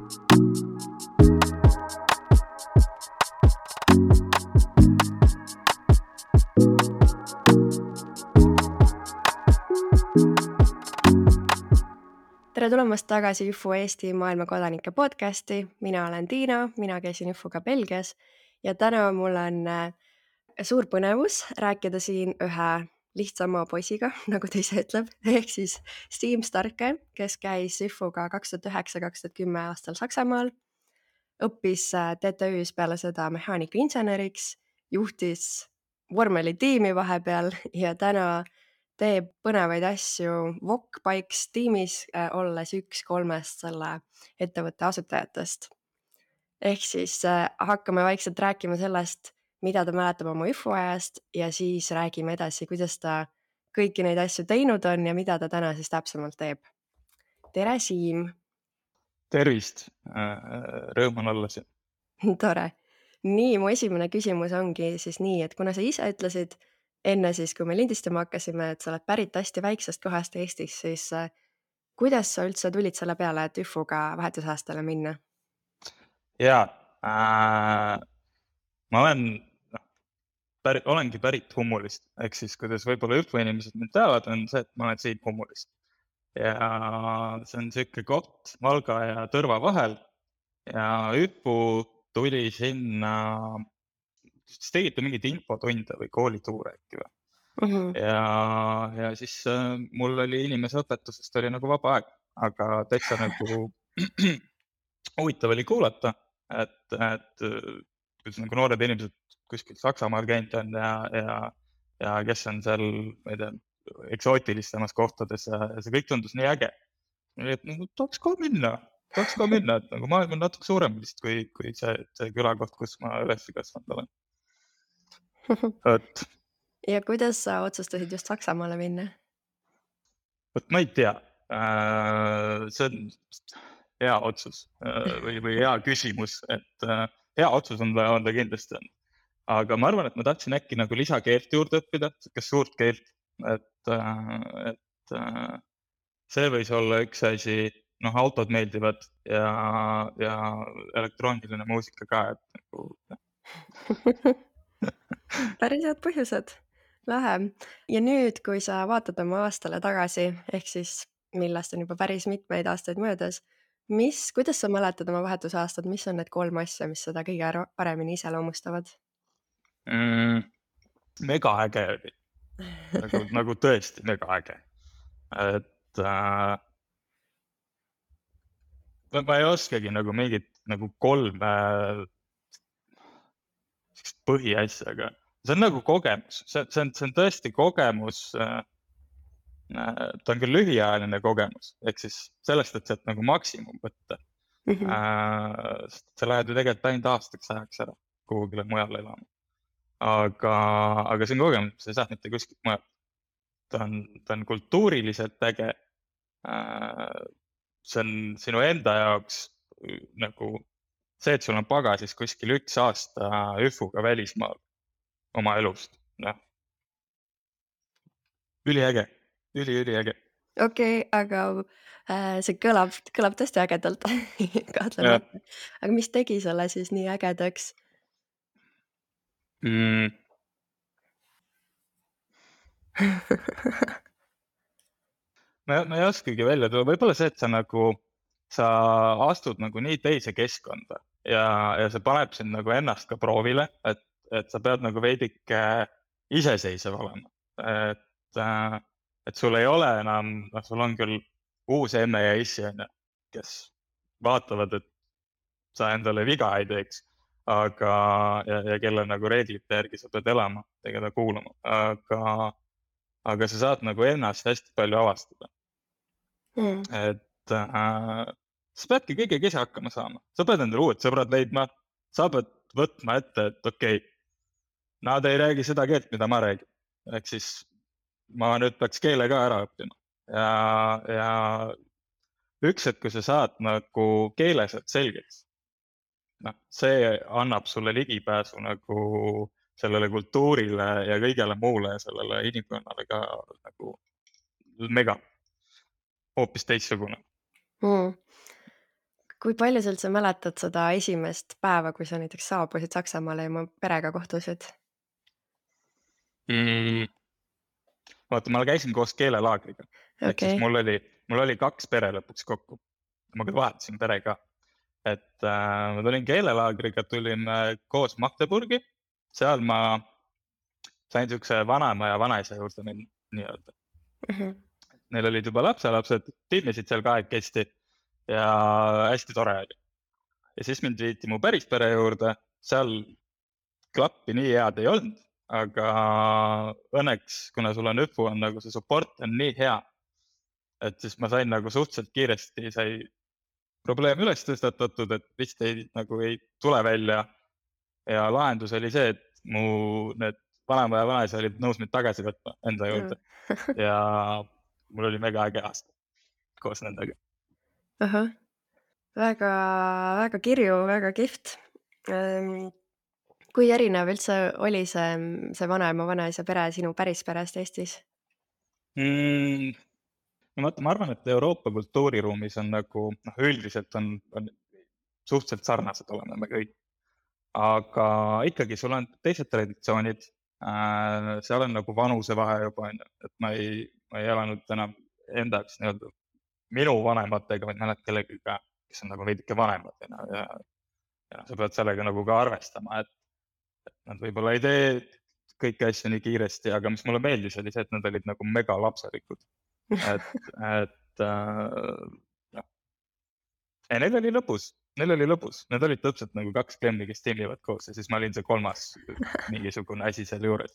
Tere tulemast tagasi IFU Eesti maailma kodanike podcasti. Mina olen Tiina, mina käisin IFUga Belgias ja täna mul on suur põnevus rääkida siin ühe lihtsama poisiga, nagu ta ise ütleb, ehk siis Siim Starke, kes käis IFUga 2009-2010 aastal Saksamaal, õppis TTÜ-s peale seda mehaanikainseneriks, juhtis vormelitiimi vahepeal ja täna teeb põnevaid asju VOK Bikes tiimis, olles üks 3 selle ettevõtte asutajatest. Ehk siis hakkame vaikselt rääkima sellest, mida ta mäletab oma IFU ajast ja siis räägime edasi, kuidas ta kõiki neid asju teinud on ja mida ta täna siis täpsemalt teeb. Tere, Siim! Tervist! Rõõm on olla siin. Tore! Nii, mu esimene küsimus ongi siis nii, et kuna sa ise ütlesid enne siis, kui me lindistama hakkasime, et sa oled pärit hästi väiksest kohast Eestis, siis kuidas sa üldse tulid selle peale, et IFUga vahetusaastale minna? Jaa, ma olengi pärit Hummulist, ehk siis kuidas võib-olla IFU inimesed mind teavad, on see, et ma olen siit Hummulist. Ja see on siuke koht Valga ja Tõrva vahel ja IFU tuli sinna, siis tegite mingid infotunde või koolituure äkki või? Ja siis mul oli inimeseõpetusest oli nagu vaba aeg, aga täitsa nagu huvitav oli kuulata, et kuidas nagu noored inimesed kuskil Saksamaal käinud on ja kes on seal, ma ei tea, eksootilistemas kohtades ja see kõik tundus nii äge. Et nagu tahaks ka minna, et nagu maailm on natuke suurem vist kui see külakoht, kus ma üles kasvanud olen. Et Ja kuidas sa otsustasid just Saksamaale minna? Võt ma ei tea, see on hea otsus või hea küsimus, et hea otsus on ta kindlasti on. Aga ma arvan, et ma tahtsin äkki nagu lisakeelt juurde õppida, kas suurt keelt, et see võis olla üks asi, autod meeldivad ja elektrooniline muusika ka, et nagu Päris head põhjused. Lähe. Ja nüüd, kui sa vaatad oma aastale tagasi, ehk siis millest on juba päris mitmeid aastaid möödas, kuidas sa mäletad oma vahetusaastad, mis on need 3 asja, mis seda kõige paremini iseloomustavad? Mega äge oli. Nagu tõesti mega äge. Et ma ei oskagi nagu mingit nagu 3 põhiasja, aga see on nagu kogemus, see on tõesti kogemus, ta on küll lühiajaline kogemus, ehk siis sellest, et sealt nagu maksimum võtta. Sa lähed ju tegelikult ainult aastaks ajaks ära kuhugile mujale elama. Aga see on kogemus, sa ei saa mitte kuskilt mujal. Ta on kultuuriliselt äge. See on sinu enda jaoks nagu see, et sul on pagasis kuskil 1 aasta IFUga välismaal oma elust. Üliäge, üliäge. Okei, aga see kõlab tõesti ägedalt, kahtlemata. Aga mis tegi selle siis nii ägedaks? Ma ei oskagi välja tuua, võib-olla see, et sa astud nagu nii teise keskkonda ja see paneb sind nagu ennast ka proovile, et sa pead nagu veidike iseseisev olema. Et sul ei ole enam, sul on küll uus emme ja issi, kes vaatavad, et sa endale viga ei teeks, ja kelle nagu reeglite järgi sa pead elama, keda kuulama, aga sa saad nagu ennast hästi palju avastada. Et sa peadki kõigega ise hakkama saama, sa pead endale uued sõbrad leidma, sa pead võtma ette, et okei, nad ei räägi seda keelt, mida ma räägin, ehk siis ma nüüd peaks keele ka ära õppima ja üks hetk, kui sa saad nagu keelesed selgeks, see annab sulle ligipääsu nagu sellele kultuurile ja kõigele muule ja sellele inimkonnale ka nagu mega, hoopis teistsugune. kui palju sa üldse mäletad seda esimest päeva, kui sa näiteks saabusid Saksamaale ja oma perega kohtusid? mm,. Vaata, ma käisin koos keelelaagriga, ehk siis Okei. mul oli 2 pere lõpuks kokku. Ma küll vahetasin pere ka, et ma tulin keelelaagriga, tulin koos Magdeburgi, seal ma sain siukse vanaema ja vanaisa juurde minna nii-öelda. Mhm. Neil olid juba lapselapsed, tinnisid seal kahekesti ja hästi tore oli. Ja siis mind viiti mu päris pere juurde, seal klappi nii head ei olnud, aga õnneks, kuna sul on ÜFU, on nagu see support on nii hea, et siis ma sain nagu suhteliselt kiiresti sai probleem üles tõstatatud, et vist ei tule välja. Ja lahendus oli see, et mu need vanaema ja vanaisa olid nõus mind tagasi võtma enda juurde ja mul oli mega äge aasta koos nendega. Ahah. Väga, väga kirju, väga kihvt. Kui erinev üldse oli see vanaema, vanaisa pere sinu päris perest Eestis? No vaata, ma arvan, et Euroopa kultuuriruumis on nagu, üldiselt on suhteliselt sarnased oleme me kõik. Aga ikkagi sul on teised traditsioonid, seal on nagu vanusevahe juba, on ju, et ma ei elanud enam enda jaoks nii-öelda minu vanematega, vaid mõned kellegiga, kes on nagu veidike vanemad, ja sa pead sellega nagu ka arvestama, et nad võib-olla ei tee kõiki asju nii kiiresti, aga mis mulle meeldis, oli see, et nad olid nagu mega lapselikud. Et noh, ja neil oli lõbus, need olid täpselt nagu 2 klemmi, kes timmivad koos ja siis ma olin see 3. mingisugune asi seal juures.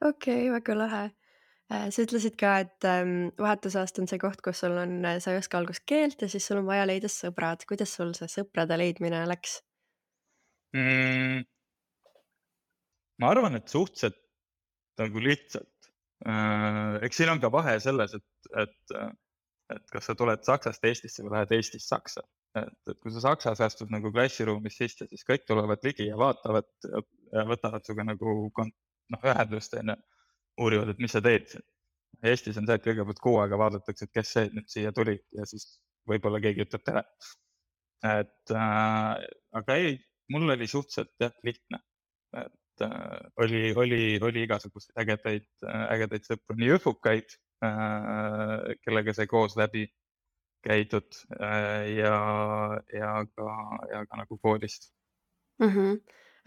Okei, väga lahe. Sa ütlesid ka, et vahetusaasta on see koht, kus sul on, sa ei oska algust keelt ja siis sul on vaja leida sõbrad. Kuidas sul see sõprade leidmine läks? Ma arvan, et suhteliselt nagu lihtsalt. Eks siin on ka vahe selles, et kas sa tuled Saksast Eestisse või lähed Eestist Saksa. Et kui sa Saksas astud nagu klassiruumis sisse, siis kõik tulevad ligi ja vaatavad ja võtavad suga nagu ühendust, on ju, uurivad, et mis sa teed siin. Eestis on see, et kõigepealt kuu aega vaadatakse, et kes see nüüd siia tuli ja siis võib-olla keegi ütleb tere. Aga ei, mul oli suhteliselt lihtne. Et oli igasuguseid ägedaid sõpru, nii õfukaid, kellega sai koos läbi käidud ja ka nagu koolist.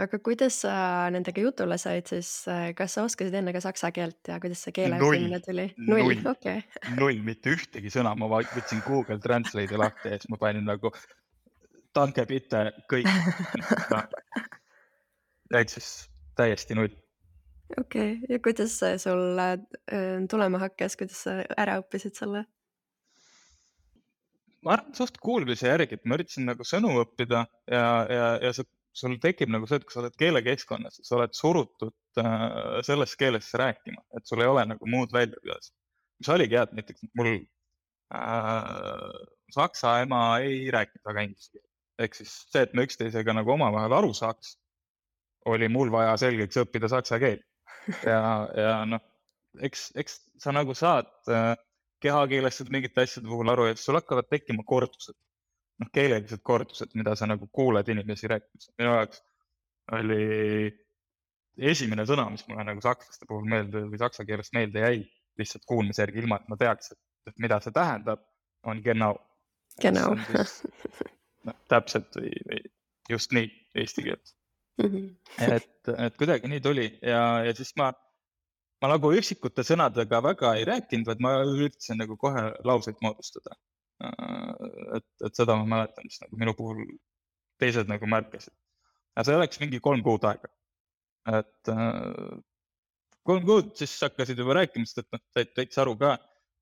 Aga kuidas sa nendega jutule said siis, kas sa oskasid enne ka saksa keelt ja kuidas see keele õppimine tuli? Null, okei. Null, mitte ühtegi sõna, ma võtsin Google Translate'i lahti ja siis ma panin nagu danke bitte kõik. Ehk siis täiesti null. Okei, ja kuidas see sul tulema hakkas, kuidas sa ära õppisid selle? Ma arvan, suht kuulmise järgi, et ma üritasin nagu sõnu õppida ja sul tekib nagu see, et kui sa oled keelekeskkonnas, sa oled surutud selles keeles rääkima, et sul ei ole nagu muud väljapääsu. Mis oligi hea, et näiteks mul saksa ema ei rääkinud väga inglise keelt. Ehk siis see, et me üksteisega nagu omavahel aru saaks, oli mul vaja selgeks õppida saksa keel. Ja noh, eks sa nagu saad kehakeelest mingite asjade puhul aru ja sul hakkavad tekkima kordused. Keelelised kordused, mida sa nagu kuuled inimesi rääkimas. Minu jaoks oli esimene sõna, mis mulle nagu sakslaste puhul meelde või saksa keelest meelde jäi, lihtsalt kuulmise järgi, ilma et ma teaks, et mida see tähendab, on genau. Genau. Täpselt või just nii eesti keelt. Et kuidagi nii tuli ja siis ma nagu üksikute sõnadega väga ei rääkinud, vaid ma üritasin nagu kohe lauseid moodustada. Et seda ma mäletan, mis nagu minu puhul teised nagu märkasid. Ja see oleks mingi 3 kuud aega. Et 3 kuud siis hakkasid juba rääkimist, et said täitsa aru ka.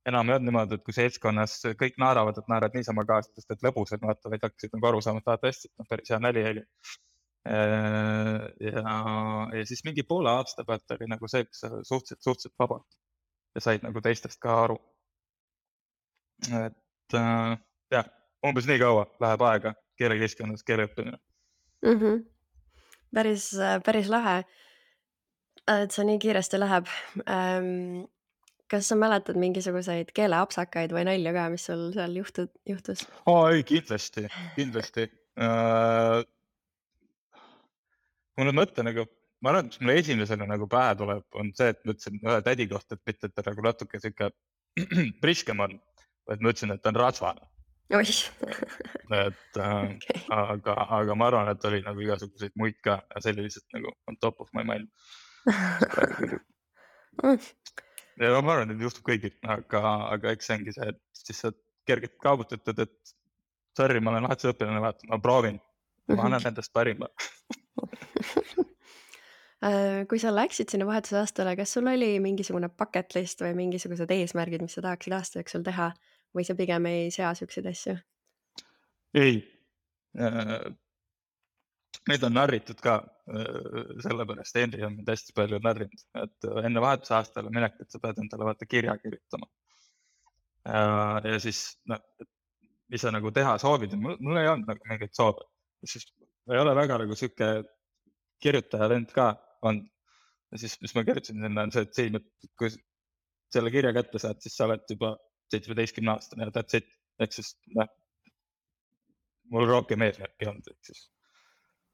Enam ei olnud niimoodi, et kui seltskonnas kõik naeravad, et naerad niisama kaasa, sest et lõbusad vaata, vaid hakkasid nagu aru saama, et vaata hästi, et päris hea nali oli. Ja siis mingi poole aasta pealt oli nagu see, kus sa suhteliselt vabalt ja said nagu teistest ka aru. Et jah, umbes nii kaua läheb aega keelekeskkonnas keele õppimine. Päris lahe, et see nii kiiresti läheb. Kas sa mäletad mingisuguseid keeleapsakaid või nalju ka, mis sul seal juhtus? Ei, kindlasti. Kui nüüd mõtlen, nagu ma arvan, et mis mulle esimesena nagu pähe tuleb, on see, et ma ütlesin ühe tädi kohta, et mitte, et ta nagu natuke sihuke priskem on, vaid ma ütlesin, et ta on rasvane. Oih. Et Okei. aga ma arvan, et oli nagu igasuguseid muid ka ja see oli lihtsalt nagu on top of my mind. Ja ma arvan, et juhtub kõigil, aga eks see ongi see, et siis sa kergelt kaabutad, et sorry, ma olen vahetusõpilane, vaata, ma proovin, ma annan endast parima. Kui sa läksid sinna vahetusaastale, kas sul oli mingisugune bucket list või mingisugused eesmärgid, mis sa tahaksid aasta jooksul teha või sa pigem ei sea siukseid asju? Ei, neid on narritud ka, sellepärast Henri on mind hästi palju narrinud, et enne vahetusaastale minekut sa pead endale vaata kirja kirjutama. Ja siis, mis sa nagu teha soovid, mul ei olnud nagu mingeid soove, siis ei ole väga nagu sihuke kirjutaja lend ka on. Ja siis, mis ma kirjutasin sinna, on see, et siin, kui selle kirja kätte saad, siis sa oled juba 17-aastane ja that's it. Ehk siis, mul rohkem eesmärki ei olnud, ehk siis.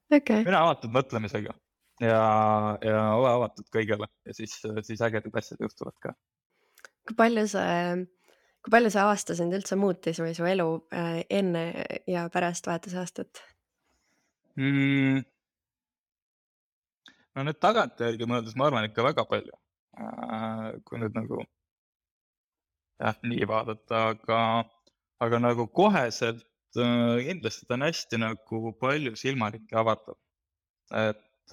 Okay. Mina avatud mõtlemisega ja ole avatud kõigele ja siis ägedad asjad juhtuvad ka. Kui palju see aasta sind üldse muutis või su elu enne ja pärast vahetusaastat? No nüüd tagantjärgi mõeldes ma arvan ikka väga palju, kui nüüd nagu nii vaadata, aga nagu koheselt kindlasti ta on hästi nagu palju silmaringi avardab. Et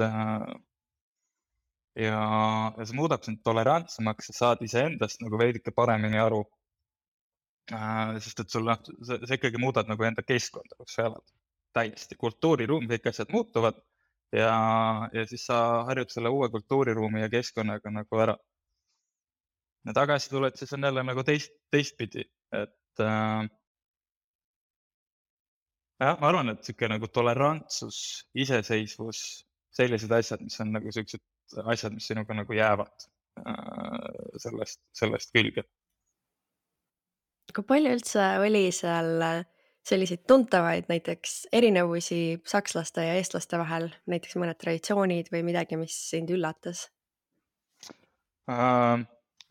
ja see muudab sind tolerantsemaks ja saad iseendast nagu veidike paremini aru. Sest et sul see ikkagi muudad nagu enda keskkonda, kus sa elad. Täiesti kultuuriruum, kõik asjad muutuvad. Ja siis sa harjud selle uue kultuuriruumi ja keskkonnaga nagu ära. Ja tagasi tuled, siis on jälle nagu teistpidi, et ma arvan, et sihuke nagu tolerantsus, iseseisvus, sellised asjad, mis on nagu siuksed asjad, mis sinuga nagu jäävad sellest külge. Kui palju üldse oli seal selliseid tuntavaid näiteks erinevusi sakslaste ja eestlaste vahel, näiteks mõned traditsioonid või midagi, mis sind üllatas?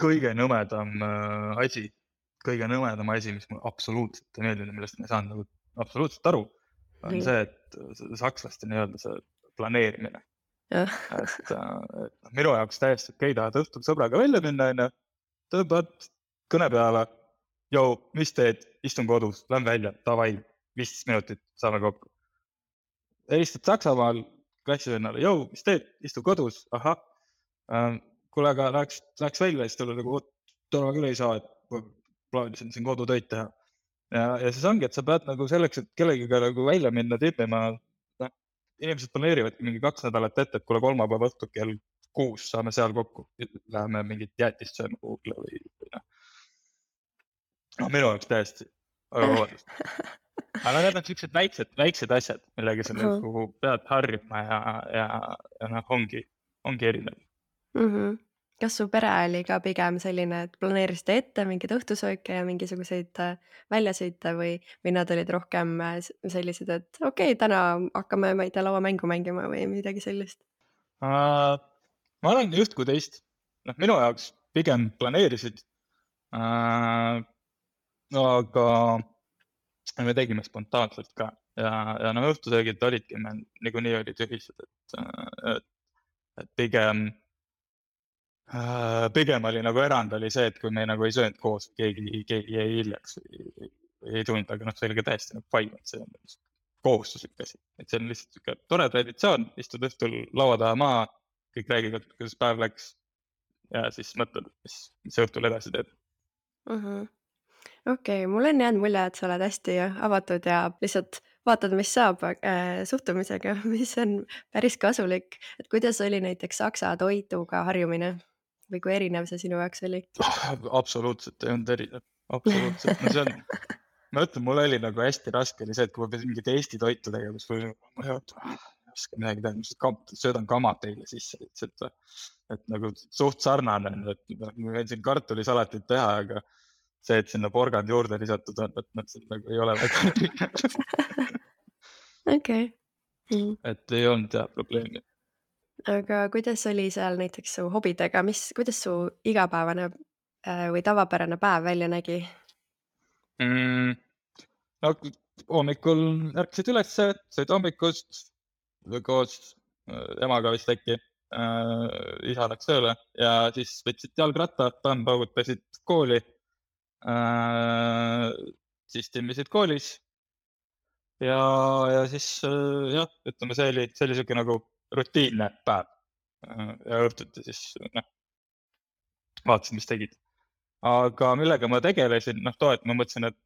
Kõige nõmedam asi, mis mulle absoluutselt ei meeldinud, millest ma ei saanud nagu absoluutselt aru, on see, et sakslaste nii-öelda see planeerimine. Et minu jaoks täiesti okei, tahad õhtul sõbraga välja minna, tõmbad kõne peale, mis teed, istun kodus, lähen välja, davai, 15 minutit, saame kokku. Helistad Saksamaal klassivennale, mis teed, istu kodus, ahah, kuule, aga läheks välja, siis tuleb nagu, täna küll ei saa, et plaanisin siin kodutöid teha. Ja siis ongi, et sa pead nagu selleks, et kellegiga nagu välja minna, tippima, inimesed planeerivadki mingi 2 nädalat ette, et kuule kolmapäeva õhtul kell 6 saame seal kokku, läheme mingit jäätist sööma kuhugile või minu jaoks täiesti, aga vabandust. Aga need on sellised väiksed asjad, millega sa nagu pead harjuma ja ongi erinev. Kas su pere oli ka pigem selline, et planeerisite ette mingeid õhtusööke ja mingisuguseid väljasõite või nad olid rohkem sellised, et okei, täna hakkame, ma ei tea, lauamängu mängima või midagi sellist? Ma olen just kui teist. Minu jaoks pigem planeerisid, aga me tegime spontaanselt ka ja õhtusöögid olidki, me niikuinii olid ühised, et pigem oli nagu erand oli see, et kui me nagu ei söönud koos, keegi jäi hiljaks või ei tulnud, aga see oli ka täiesti nagu fine, et see on kohustuslik asi. Et see on lihtsalt siuke tore traditsioon, istud õhtul laua taha maha, kõik räägivad, kuidas päev läks ja siis mõtled, mis õhtul edasi teed. Okei, mul on jäänud mulje, et sa oled hästi avatud ja lihtsalt vaatad, mis saab suhtumisega, mis on päris kasulik. Et kuidas oli näiteks saksa toituga harjumine või kui erinev see sinu jaoks oli? Absoluutselt ei olnud erinev, absoluutselt. No see on, ma ütlen, mul oli nagu hästi raske oli see, et kui ma pidin mingit Eesti toitu tegema, siis ei oska midagi teha, mis söödan kama teile sisse, et nagu suht sarnane, et ma võin siin kartulisalatit teha, aga see, et sinna porgand juurde lisatud on, et see nagu ei ole väga Okei. et ei olnud jah probleemi. Aga kuidas oli seal näiteks su hobidega, kuidas su igapäevane või tavapärane päev välja nägi? No hommikul ärkasid üles, sõid hommikust koos emaga vist äkki, isa läks tööle ja siis võtsid jalgratta, paugutasid kooli, siis timmisid koolis ja siis jah, ütleme, see oli siuke nagu rutiinne päev ja õhtuti siis vaatasin, mis tegid. Aga millega ma tegelesin, too, et ma mõtlesin, et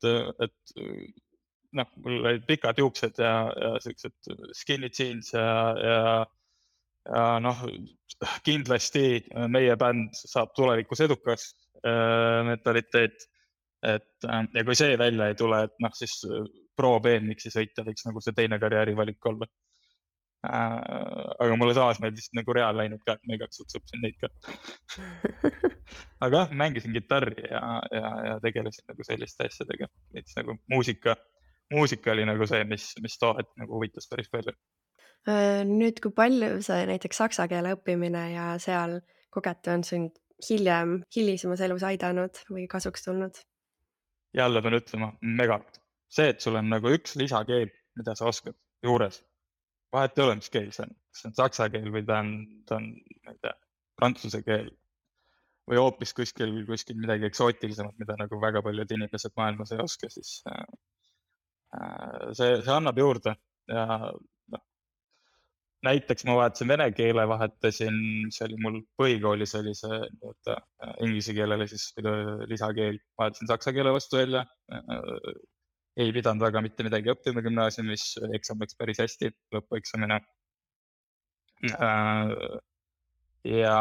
mul olid pikad juuksed ja siuksed skinny jeans ja kindlasti meie bänd saab tulevikus edukas mentaliteet. Ja kui see välja ei tule, et siis pro BMX-i sõita võiks nagu see teine karjäärivalik olla. Aga mulle taas meeldis nagu reaal läinud ka, et ma igaks juhuks õppisin neid ka. Aga jah, mängisin kitarri ja tegelesin nagu selliste asjadega. Näiteks nagu muusika oli nagu see, mis too hetk nagu huvitas päris palju. Nüüd, kui palju see näiteks saksa keele õppimine ja seal kogetu on sind hilisemas elus aidanud või kasuks tulnud? Jälle pean ütlema, megalt. See, et sul on nagu üks lisakeel, mida sa oskad juures. Vahet ei ole, mis keel see on. Kas see on saksa keel või ta on prantsuse keel või hoopis kuskil midagi eksootilisemat, mida nagu väga paljud inimesed maailmas ei oska, siis see annab juurde ja näiteks ma vahetasin vene keele, vahetasin, see oli mul põhikoolis oli see inglise keelele siis lisakeel, vahetasin saksa keele vastu välja. Ei pidanud väga mitte midagi õppima gümnaasiumis, eksam läks päris hästi, lõpueksamine. Ja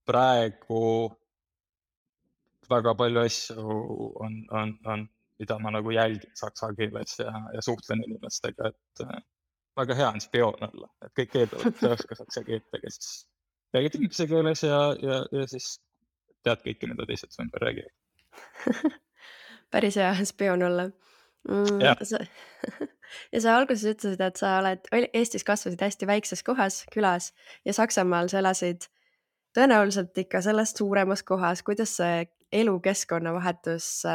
praegu väga palju asju on, mida ma nagu jälgin saksa keeles ja suhtlen inimestega, et väga hea on spioon olla, et kõik keeldavad, et sa oska saksa keelt, aga siis räägid inglise keeles ja siis tead kõike, mida teised su ümber räägivad. Päris hea spioon olla. Ja sa alguses ütlesid, et sa Eestis kasvasid hästi väikses kohas, külas ja Saksamaal sa elasid tõenäoliselt ikka sellest suuremas kohas. Kuidas see elukeskkonna vahetus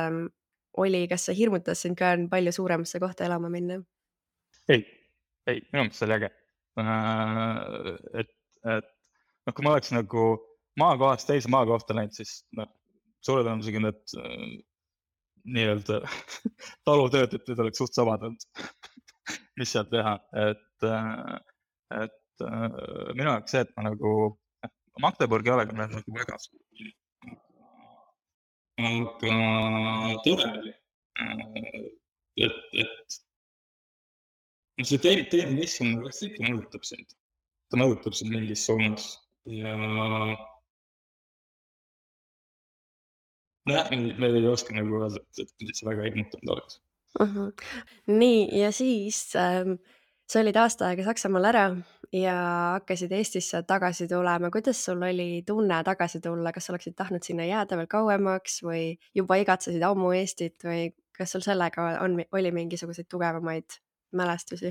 oli? Kas see hirmutas sind ka palju suuremasse kohta elama minna? Ei, minu mõttes oli äge. Et kui ma oleks nagu maakohast teise maakohta läinud, siis suure tõenäosusega need nii-öelda talutöötajad oleks suht samad olnud, mis seal teha. Et minu jaoks see, et ma nagu Magdeburgi olega olen nagu väga suur. Aga tore oli. Et see teine keskkond vast ikka mõjutab sind. Ta mõjutab sind mingis suunas ja me ei oska nagu öelda, et see väga hirmutanud oleks. Nii, ja siis sa olid aasta aega Saksamaal ära ja hakkasid Eestisse tagasi tulema. Kuidas sul oli tunne tagasi tulla? Kas oleksid tahtnud sinna jääda veel kauemaks või juba igatsesid ammu Eestit või kas sul sellega oli mingisuguseid tugevamaid mälestusi?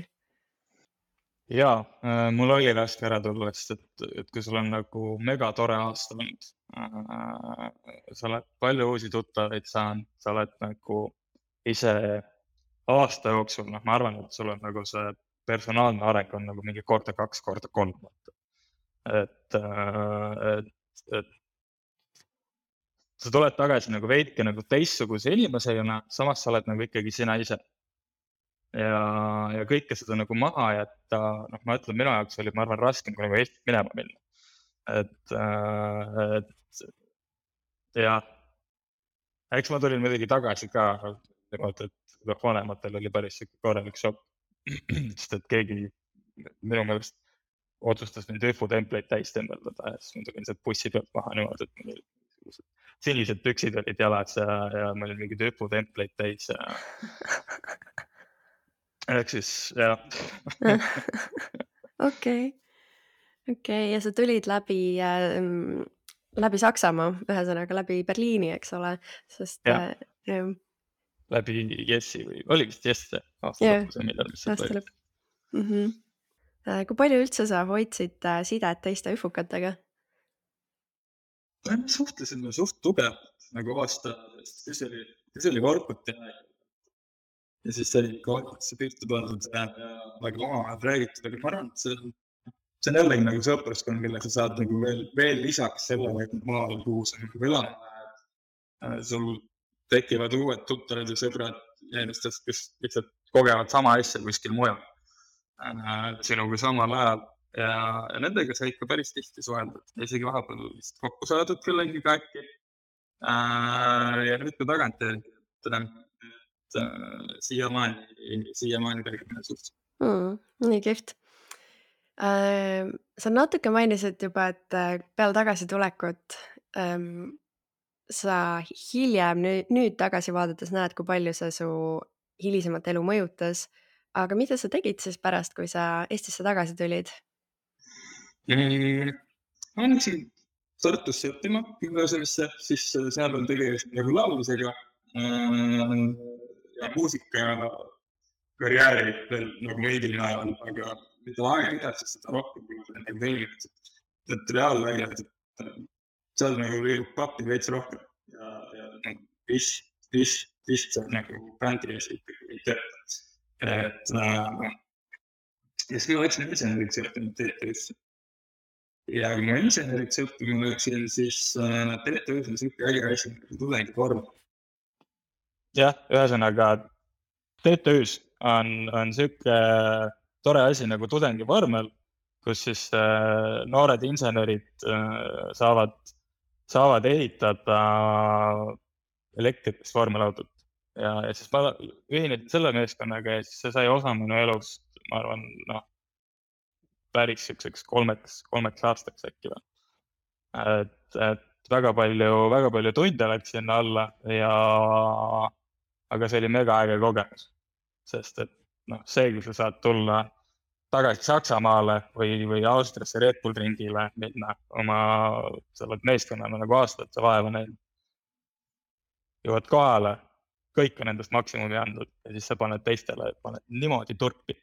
Jaa, mul oli raske ära tulla, sest et kui sul on nagu mega tore aasta olnud, sa oled palju uusi tuttavaid saanud, sa oled nagu ise aasta jooksul, ma arvan, et sul on nagu see personaalne areng on nagu mingi korda 2, korda 3. Et sa tuled tagasi nagu veidike nagu teistsuguse inimesena, samas sa oled nagu ikkagi sina ise. Ja kõike seda nagu maha jätta, ma ütlen, minu jaoks oli, ma arvan, raskem kui nagu Eestit minema minna. Et eks ma tulin muidugi tagasi ka, et vanematel oli päris korralik šokk, sest et keegi minu meelest otsustas mind hüputempleid täis tembeldada ja siis ma tulin sealt bussi pealt maha niimoodi, et mul olid sinised püksid olid jalas ja ma olin mingid hüputempleid täis ja ehk siis jah. Okei, ja sa tulid läbi Saksamaa, ühesõnaga läbi Berliini, eks ole, sest jah, jah, läbi Jessi või oli vist Jess see aasta jah, lõpus või millal, mis sealt aasta oli. lõpp. Kui palju üldse sa hoidsid sidet teiste üfukatega? Me suhtlesime suht tugevalt nagu aasta, kes oli Vorkuti aeg. Ja siis sai ikka Vorkutisse pihta pandud ja nagu omavahel räägitud, aga ma arvan, et see on jällegi nagu sõpruskond, mille sa saad nagu veel lisaks sellele, et maal, kuhu sa nagu elama lähed. Sul tekivad uued tuttavad ja sõbrad inimestest, kes lihtsalt kogevad sama asja kuskil mujal sinuga samal ajal ja nendega sai ikka päris tihti suheldud. Isegi vahepeal vist kokku saadud kellegiga äkki. Ja nüüd ka tagantjärgi, et siiamaani räägime suht. Nii kihvt. Sa natuke mainisid juba, et peale tagasitulekut sa hiljem nüüd tagasi vaadates näed, kui palju see su hilisemat elu mõjutas. Aga mida sa tegid siis pärast, kui sa Eestisse tagasi tulid? Ma läksin Tartusse õppima gümnaasiumisse, siis seal on tegelikult nagu laulmisega ja muusika karjääri veel nagu veidi ajal, aga mida aega edasi, seda rohkem kui nagu veelgi, et reaalväljad, et seal nagu liigub pappi veits rohkem ja vist see nagu bändi ees ikkagi ei tööta. Et ja siis ma võtsin inseneriks õppinud TTÜ-sse. Ja kui ma inseneriks õppima läksin, siis TTÜ-s on siuke äge asi nagu tudengivorm. jah, ühesõnaga TTÜ-s on siuke tore asi nagu tudengivormel, kus siis noored insenerid saavad ehitada elektrikast vormelautot. Ja siis ma ühinesin selle meeskonnaga ja siis see sai osa minu elust, ma arvan, päris siukseks kolmeks aastaks äkki või. Et väga palju tunde läks sinna alla aga see oli mega äge kogemus, sest et see, kui sa saad tulla tagasi Saksamaale või Austriasse Red Bull ringile minna sa oled meeskonnana nagu aastate vaeva näinud, jõuad kohale, kõik on endast maksimumi andnud ja siis sa paned teistele niimoodi turpi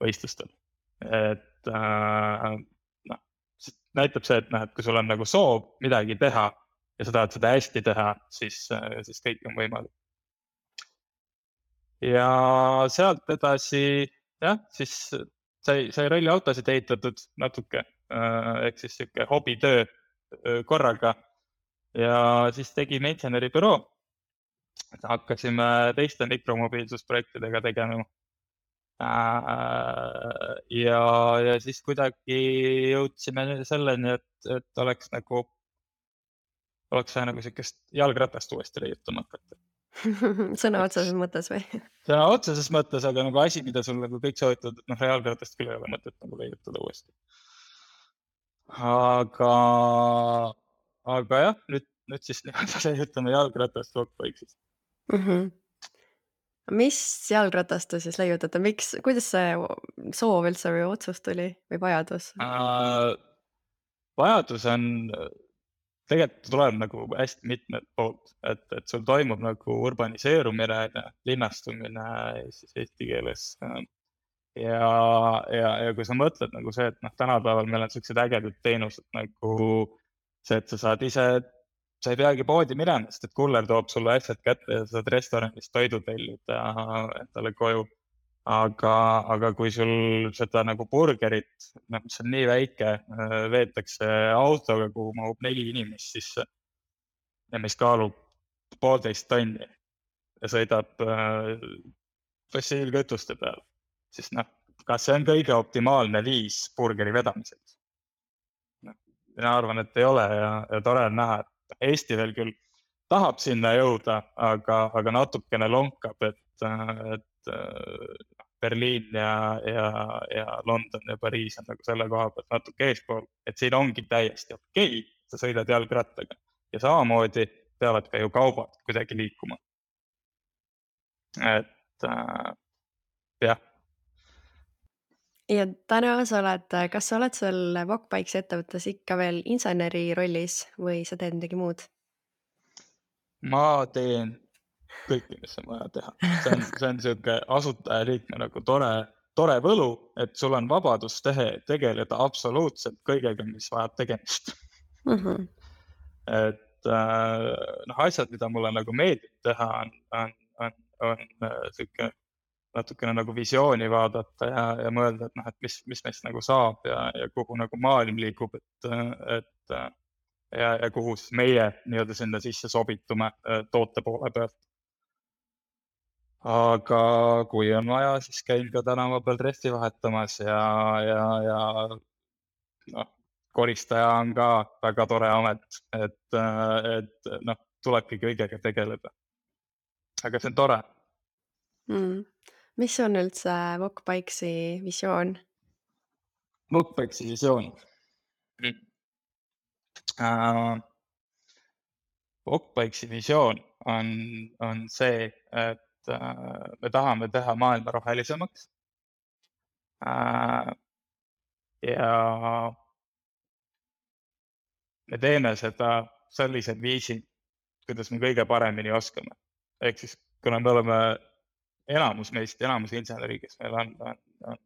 võistlustel. Et näitab see, et kui sul on nagu soov midagi teha ja sa tahad seda hästi teha, siis kõik on võimalik. Ja sealt edasi, jah, siis sai ralliautosid ehitatud natuke, ehk siis siuke hobitöö korraga ja siis tegime inseneribüroo. Hakkasime teiste mikromobiilsusprojektidega tegema. Ja siis kuidagi jõudsime selleni, et oleks vaja nagu siukest jalgratast uuesti leiutama hakata. Sõna otseses mõttes või? Sõna otseses mõttes, aga nagu asi, mida sul nagu kõik soovitavad, et jalgratast küll ei ole mõtet nagu leiutada uuesti. Aga jah, nüüd siis leiutame jalgratast kokku. Mis jalgratast te siis leiutate? Kuidas see soov üldse või otsus tuli või vajadus? Vajadus on, tegelikult tuleb nagu hästi mitmed poolt, et sul toimub nagu urbaniseerumine, linnastumine siis eesti keeles. Ja kui sa mõtled nagu see, et tänapäeval meil on sellised ägedad teenused nagu see, et sa saad ise, sa ei peagi poodi minema, sest et kuller toob sulle asjad kätte ja sa saad restoranist toidu tellida endale koju. Aga kui sul seda nagu burgerit, mis on nii väike, veetakse autoga, kuhu mahub 4 inimest sisse ja mis kaalub 1,5 tonni ja sõidab fossiilkütuste peal, siis kas see on kõige optimaalne viis burgeri vedamiseks? Mina arvan, et ei ole ja tore on näha, et Eesti veel küll tahab sinna jõuda, aga natukene lonkab, et Berliin ja London ja Pariis on nagu selle koha pealt natuke eespool, et siin ongi täiesti okei, sa sõidad jalgrattaga ja samamoodi peavad ka ju kaubad kuidagi liikuma. Et jah. Ja täna kas sa oled seal Walkbikesi ettevõttes ikka veel inseneri rollis või sa teed midagi muud? Ma teen kõike, mis on vaja teha. See on siuke asutajaliikme nagu tore võlu, et sul on vabadus tegeleda absoluutselt kõigega, mis vajab tegemist. Et asjad, mida mulle nagu meeldib teha, on siuke natukene nagu visiooni vaadata ja mõelda, et mis meist nagu saab ja kuhu nagu maailm liigub, ja kuhu siis meie nii-öelda sinna sisse sobitume toote poole pealt. Aga kui on vaja, siis käin ka tänava peal dresti vahetamas ja koristaja on ka väga tore amet, et tulebki kõigega tegeleda. Aga see on tore. Mis on üldse Walkbikesi visioon? Walkbikesi visioon. Walkbikesi visioon on see, et me tahame teha maailma rohelisemaks. Ja me teeme seda sellisel viisil, kuidas me kõige paremini oskame. Ehk siis, kuna me oleme enamus inseneri, kes meil on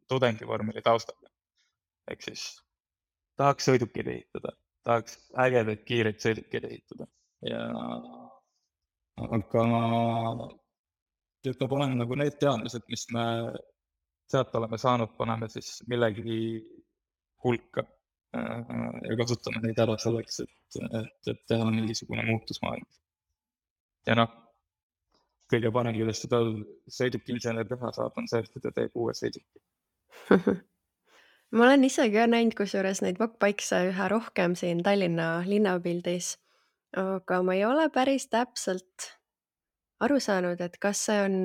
tudengivormeli taustaga. Ehk siis tahaks sõidukid ehitada, tahaks ägedaid kiireid sõidukid ehitada. Aga peab olema nagu need teadmised, mis me sealt oleme saanud, paneme siis millegi hulka ja kasutame neid ära selleks, et teha mingisugune muutus maailmas. Ja kõige parem, kuidas seda sõidukiinsener teha saab, on see, et ta teeb uue sõiduki. Ma olen ise ka näinud kusjuures neid Walkbikese üha rohkem siin Tallinna linnapildis, aga ma ei ole päris täpselt aru saanud, et kas see on,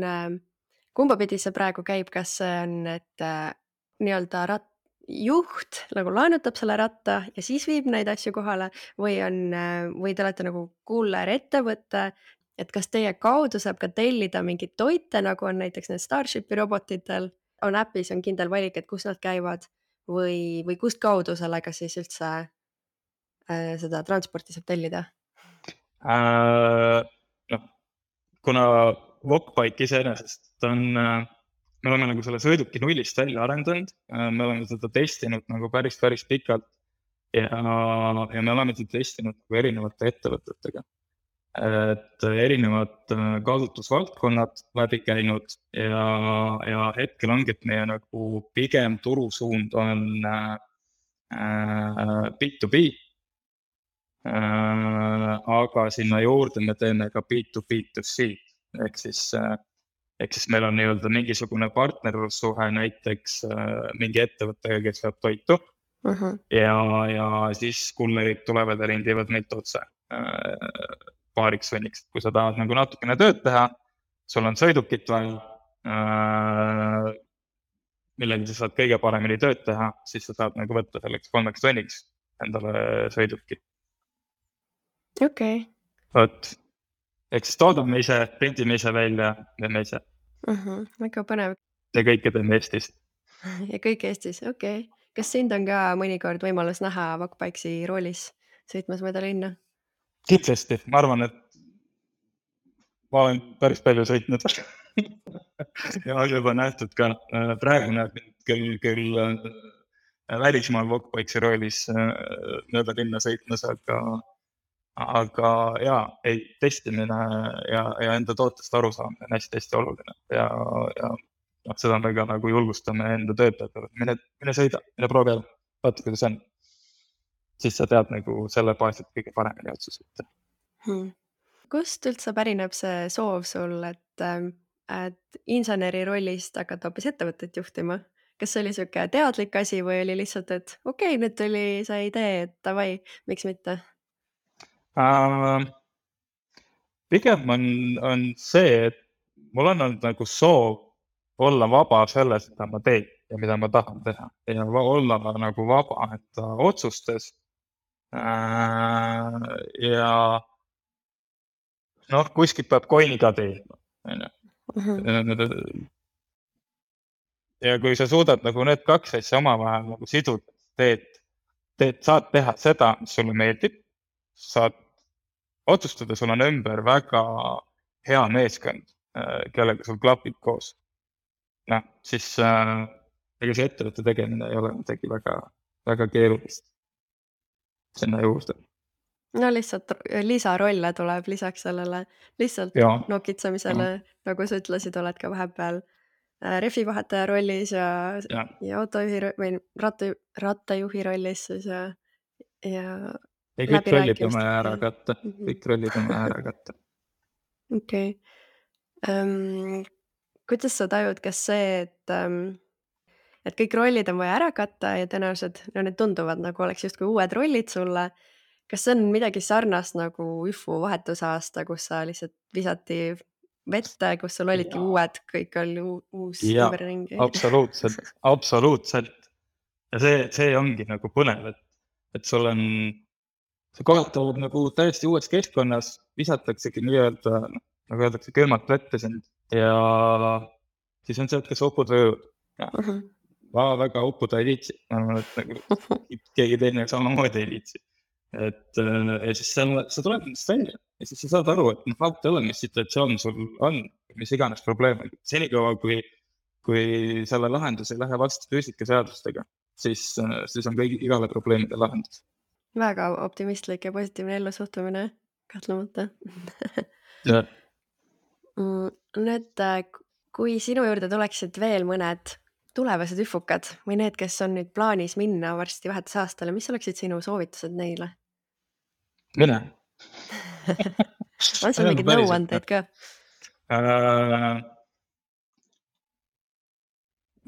kumba pidi see praegu käib, kas see on, et nii-öelda juht nagu laenutab selle ratta ja siis viib neid asju kohale või te olete nagu kuller ettevõte, et kas teie kaudu saab ka tellida mingeid toite, nagu on näiteks need Starshipi robotitel, on äpis on kindel valik, et kus nad käivad või kust kaudu sellega siis üldse seda transporti saab tellida? Kuna Walkbike iseenesest me oleme nagu selle sõiduki nullist välja arendanud, me oleme seda testinud nagu päris pikalt ja me oleme seda testinud nagu erinevate ettevõtetega. Et erinevad kasutusvaldkonnad läbi käinud ja hetkel ongi, et meie nagu pigem turusuund on B2B, aga sinna juurde me teeme ka B2B2C, ehk siis meil on nii-öelda mingisugune partnerlussuhe näiteks mingi ettevõttega, kes saab toitu ja siis kullerid tulevad ja rendivad meilt otse paariks venniks. Kui sa tahad nagu natukene tööd teha, sul on sõidukit vaja, millega sa saad kõige paremini tööd teha, siis sa saad nagu võtta selleks 3 tunniks endale sõiduki. Okay. Vot, ehk siis toodame ise, printime ise välja, teeme ise. Väga põnev. Ja kõike teeme Eestis. Ja kõik Eestis, okei. Kas sind on ka mõnikord võimalus näha Walkbikesi roolis sõitmas mööda linna? Kindlasti, ma arvan, et ma olen päris palju sõitnud ja juba nähtud ka. Praegu näeb küll välismaal Walkbikesi roolis mööda linna sõitmas, aga jaa, testimine ja enda tootest aru saamine on hästi oluline ja seda me ka nagu julgustame enda töötajatele. Mine sõida, mine proovi ära, vaata kuidas on. Siis sa tead nagu selle baasilt kõige paremini otsused. Kust üldse pärineb see soov sul, et inseneri rollist hakata hoopis ettevõtet juhtima? Kas see oli siuke teadlik asi või oli lihtsalt, et okei, nüüd tuli see idee, et davai, miks mitte? Pigem on see, et mul on olnud nagu soov olla vaba selles, mida ma teen ja mida ma tahan teha ja olla nagu vaba enda otsustes. Ja kuskilt peab coin'i ka teenima. ja kui sa suudad nagu need kaks asja omavahel nagu siduda, saad teha seda, mis sulle meeldib, saad otsustada, sul on ümber väga hea meeskond, kellega sul klapib koos. Noh, siis ega see ettevõtte tegemine ei ole midagi väga, väga keerulist sinna juurde. No lihtsalt lisarolle tuleb lisaks sellele, lihtsalt Ja. nokitsemisele, nagu sa ütlesid, oled ka vahepeal rehvivahetaja rollis ja autojuhi või rattajuhi rollis siis ja kõik rollid on vaja ära katta. Kõik rollid on vaja ära katta. Okei. Kuidas sa tajud, kas see, et kõik rollid on vaja ära katta ja tõenäoliselt need tunduvad nagu oleks justkui uued rollid sulle, kas see on midagi sarnast nagu UFO vahetusaasta, kus sa lihtsalt visati vette, kus sul olidki uued, kõik oli uus ümberringi? Absoluutselt. Ja see ongi nagu põnev, et sul on, see kohatavad nagu täiesti uues keskkonnas, visataksegi nii-öelda, nagu öeldakse, külmalt vette sind ja siis on see, et kas upud või õud. Ma väga uppuda ei liitsi, ma arvan, et nagu keegi teine samamoodi ei liitsi. Ja siis sa tuleb nendest välja ja siis sa saad aru, et vaata ole, mis situatsioon sul on, mis iganes probleem on. Senikaua, kui selle lahendus ei lähe vastu füüsikaseadustega, siis on igale probleemide lahendus. Väga optimistlik ja positiivne ellusuhtumine, kahtlemata. Nüüd, kui sinu juurde tuleksid veel mõned tulevased üfukad või need, kes on nüüd plaanis minna varsti vahetusaastale, mis oleksid sinu soovitused neile? Mine. On sul mingid nõuandeid ka?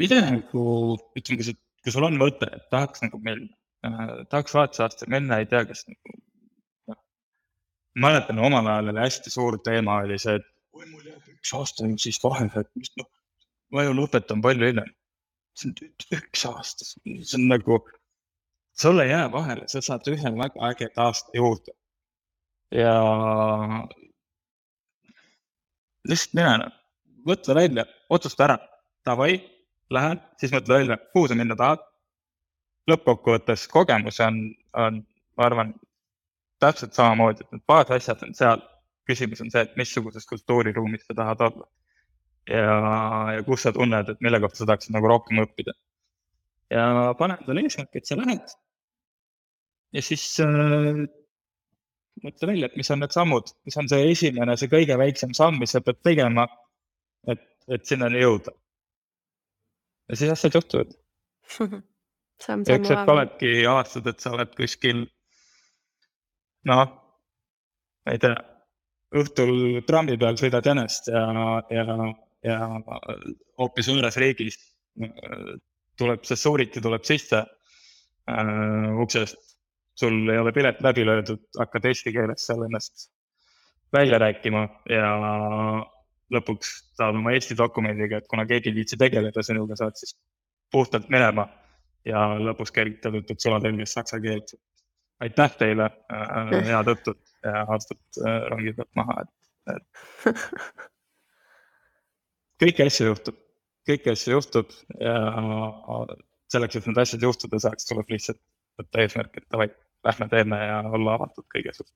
Mida nagu, ütleme, kui sul on mõte, et tahaks nagu minna, tahaks vahetusaastal minna, ei tea, kas nagu, mäletan omal ajal oli hästi suur teema oli see, et mul jääb 1 aasta siis vahele, et ma ju lõpetan palju hiljem. See on 1 aasta, see on nagu, sulle jääb vahele, sa saad ühe väga ägeda aasta juurde. Ja lihtsalt mine, võtta välja, otsusta ära, davai, lähen, siis mõtle välja, kuhu sa minna tahad. Lõppkokkuvõttes kogemus on, ma arvan, täpselt samamoodi, et need baasasjad on seal. Küsimus on see, et missuguses kultuuriruumis sa tahad olla. Ja kus sa tunned, et mille kohta sa tahaksid nagu rohkem õppida. Ja pane endale eesmärk, et sa lähed. Ja siis mõtle välja, et mis on need sammud, mis on see esimene, see kõige väiksem samm, mis sa pead tegema, et sinnani jõuda. Ja siis asjad juhtuvad. Ja üks hetk oledki aastad, et sa oled kuskil, ma ei tea, õhtul trammi peal sõidad jänest ja hoopis võõras riigis tuleb see suuriti tuleb sisse uksest, sul ei ole pilet läbi löödud, hakkad eesti keeles seal ennast välja rääkima ja lõpuks saad oma eesti dokumendiga, et kuna keegi viitsi tegeleda sinuga, saad siis puhtalt minema ja lõpuks kergitad, et sulatõlges saksa keelt. Aitäh teile, head õhtut ja aastat rongid pealt maha. Kõiki asju juhtub ja selleks, et need asjad juhtuda saaks, tuleb lihtsalt võtta eesmärk, et davai, lähme teeme ja olla avatud kõige suht.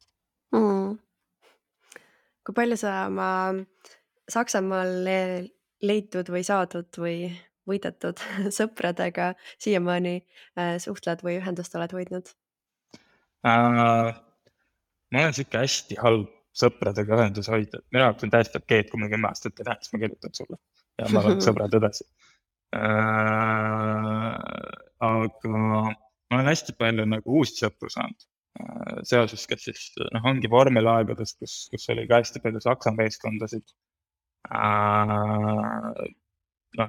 Kui palju sa oma Saksamaal leitud või saadud või võidetud sõpradega siiamaani suhtled või ühendust oled hoidnud? Ma olen siuke hästi halb sõpradega ühendus hoida. Minu jaoks on täiesti okei, kui ma 10 aastat ei näeks, ma kirjutan sulle ja ma olen sõbrad edasi. Aga ma olen hästi palju nagu uusi sõpru saanud. Seoses, kes siis ongi vormelaegadest, kus oli ka hästi palju saksa meeskondasid.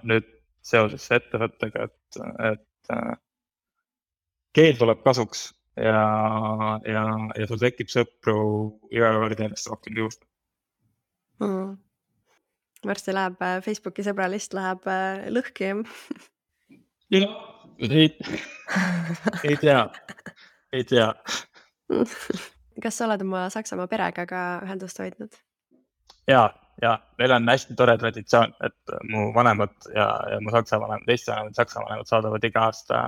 Nüüd seoses ettevõttega, et keel tuleb kasuks ja sul tekib sõpru iga kord ennast rohkem juurde. Varsti läheb Facebooki sõbralist läheb lõhki. Ei tea. Kas sa oled oma Saksamaa perega ka ühendust hoidnud? Jaa, ja meil on hästi tore traditsioon, et mu vanemad ja mu saksa vanemad, Eesti vanemad, saksa vanemad saadavad iga aasta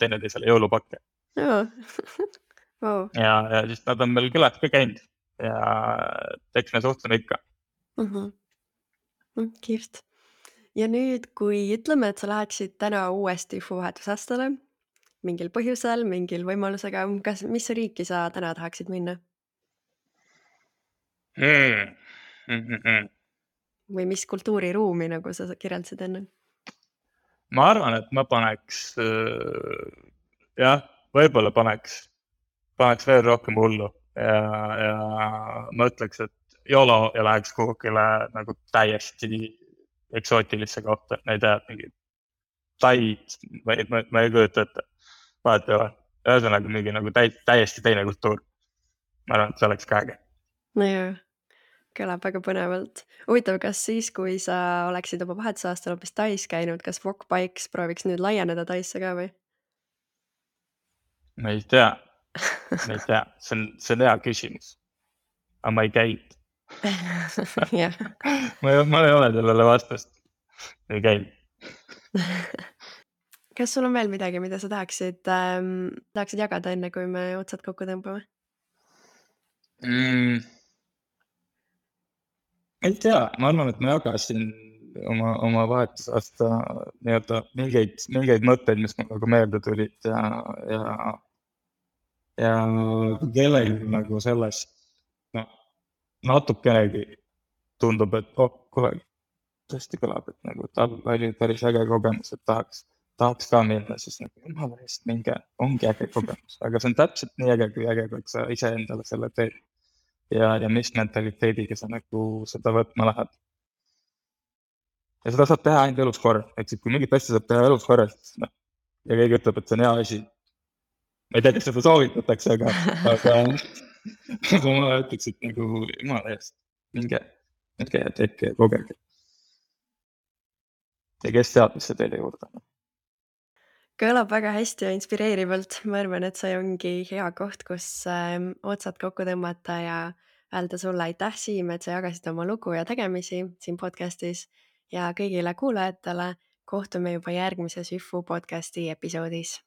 teineteisele jõulupakke. Joo. Wow. Ja siis nad on meil külas ka käinud ja eks me suhtleme ikka. Kihvt. Ja nüüd, kui ütleme, et sa läheksid täna uuesti vahetusastele, mingil põhjusel, mingil võimalusega, mis riiki sa täna tahaksid minna? Või mis kultuuriruumi, nagu sa kirjeldasid enne? Ma arvan, et ma paneks, jah, võib-olla paneks veel rohkem hullu ja ma ütleks, et YOLO ja läheks kuhugile nagu täiesti eksootilisse kohta, ma ei tea, mingi Taid, ma ei kujuta ette, vahet ei ole. Ühesõnaga mingi nagu täiesti teine kultuur. Ma arvan, et see oleks ka äge. No jaa, kõlab väga põnevalt. Huvitav, kas siis, kui sa oleksid oma vahetusaastal hoopis Tais käinud, kas Walk Bikes prooviks nüüd laieneda Taisse ka või? Ma ei tea, see on hea küsimus. Aga ma ei käinud. Jah. Ma ei ole sellele vastust. Ei käinud. Kas sul on veel midagi, mida sa tahaksid jagada enne, kui me otsad kokku tõmbame? Ei tea, ma arvan, et ma jagasin oma vahetusaasta nii-öelda mingeid mõtteid, mis mul nagu meelde tulid ja kellelgi nagu sellest natukenegi tundub, et kohe tõesti kõlab, et nagu tal oli päris äge kogemus, et tahaks ka minna, siis nagu jumala eest minge, ongi äge kogemus, aga see on täpselt nii äge, kui sa ise endale selle teed ja mis mentaliteediga sa nagu seda võtma lähed. Ja seda saab teha ainult elus korra, eks kui mingit asja saab teha elus korra, siis ja keegi ütleb, et see on hea asi. Ma ei tea, kas seda soovitatakse, aga ma ütleks, et nagu jumala eest, minge ja tehke ja kogege. Ja kes teab, mis see teile juurde on. Kõlab väga hästi ja inspireerivalt. Ma arvan, et see ongi hea koht, kus otsad kokku tõmmata ja öelda sulle aitäh, Siim, et sa jagasid oma lugu ja tegemisi siin podcastis ja kõigile kuulajatele kohtume juba järgmises YFU podcasti episoodis.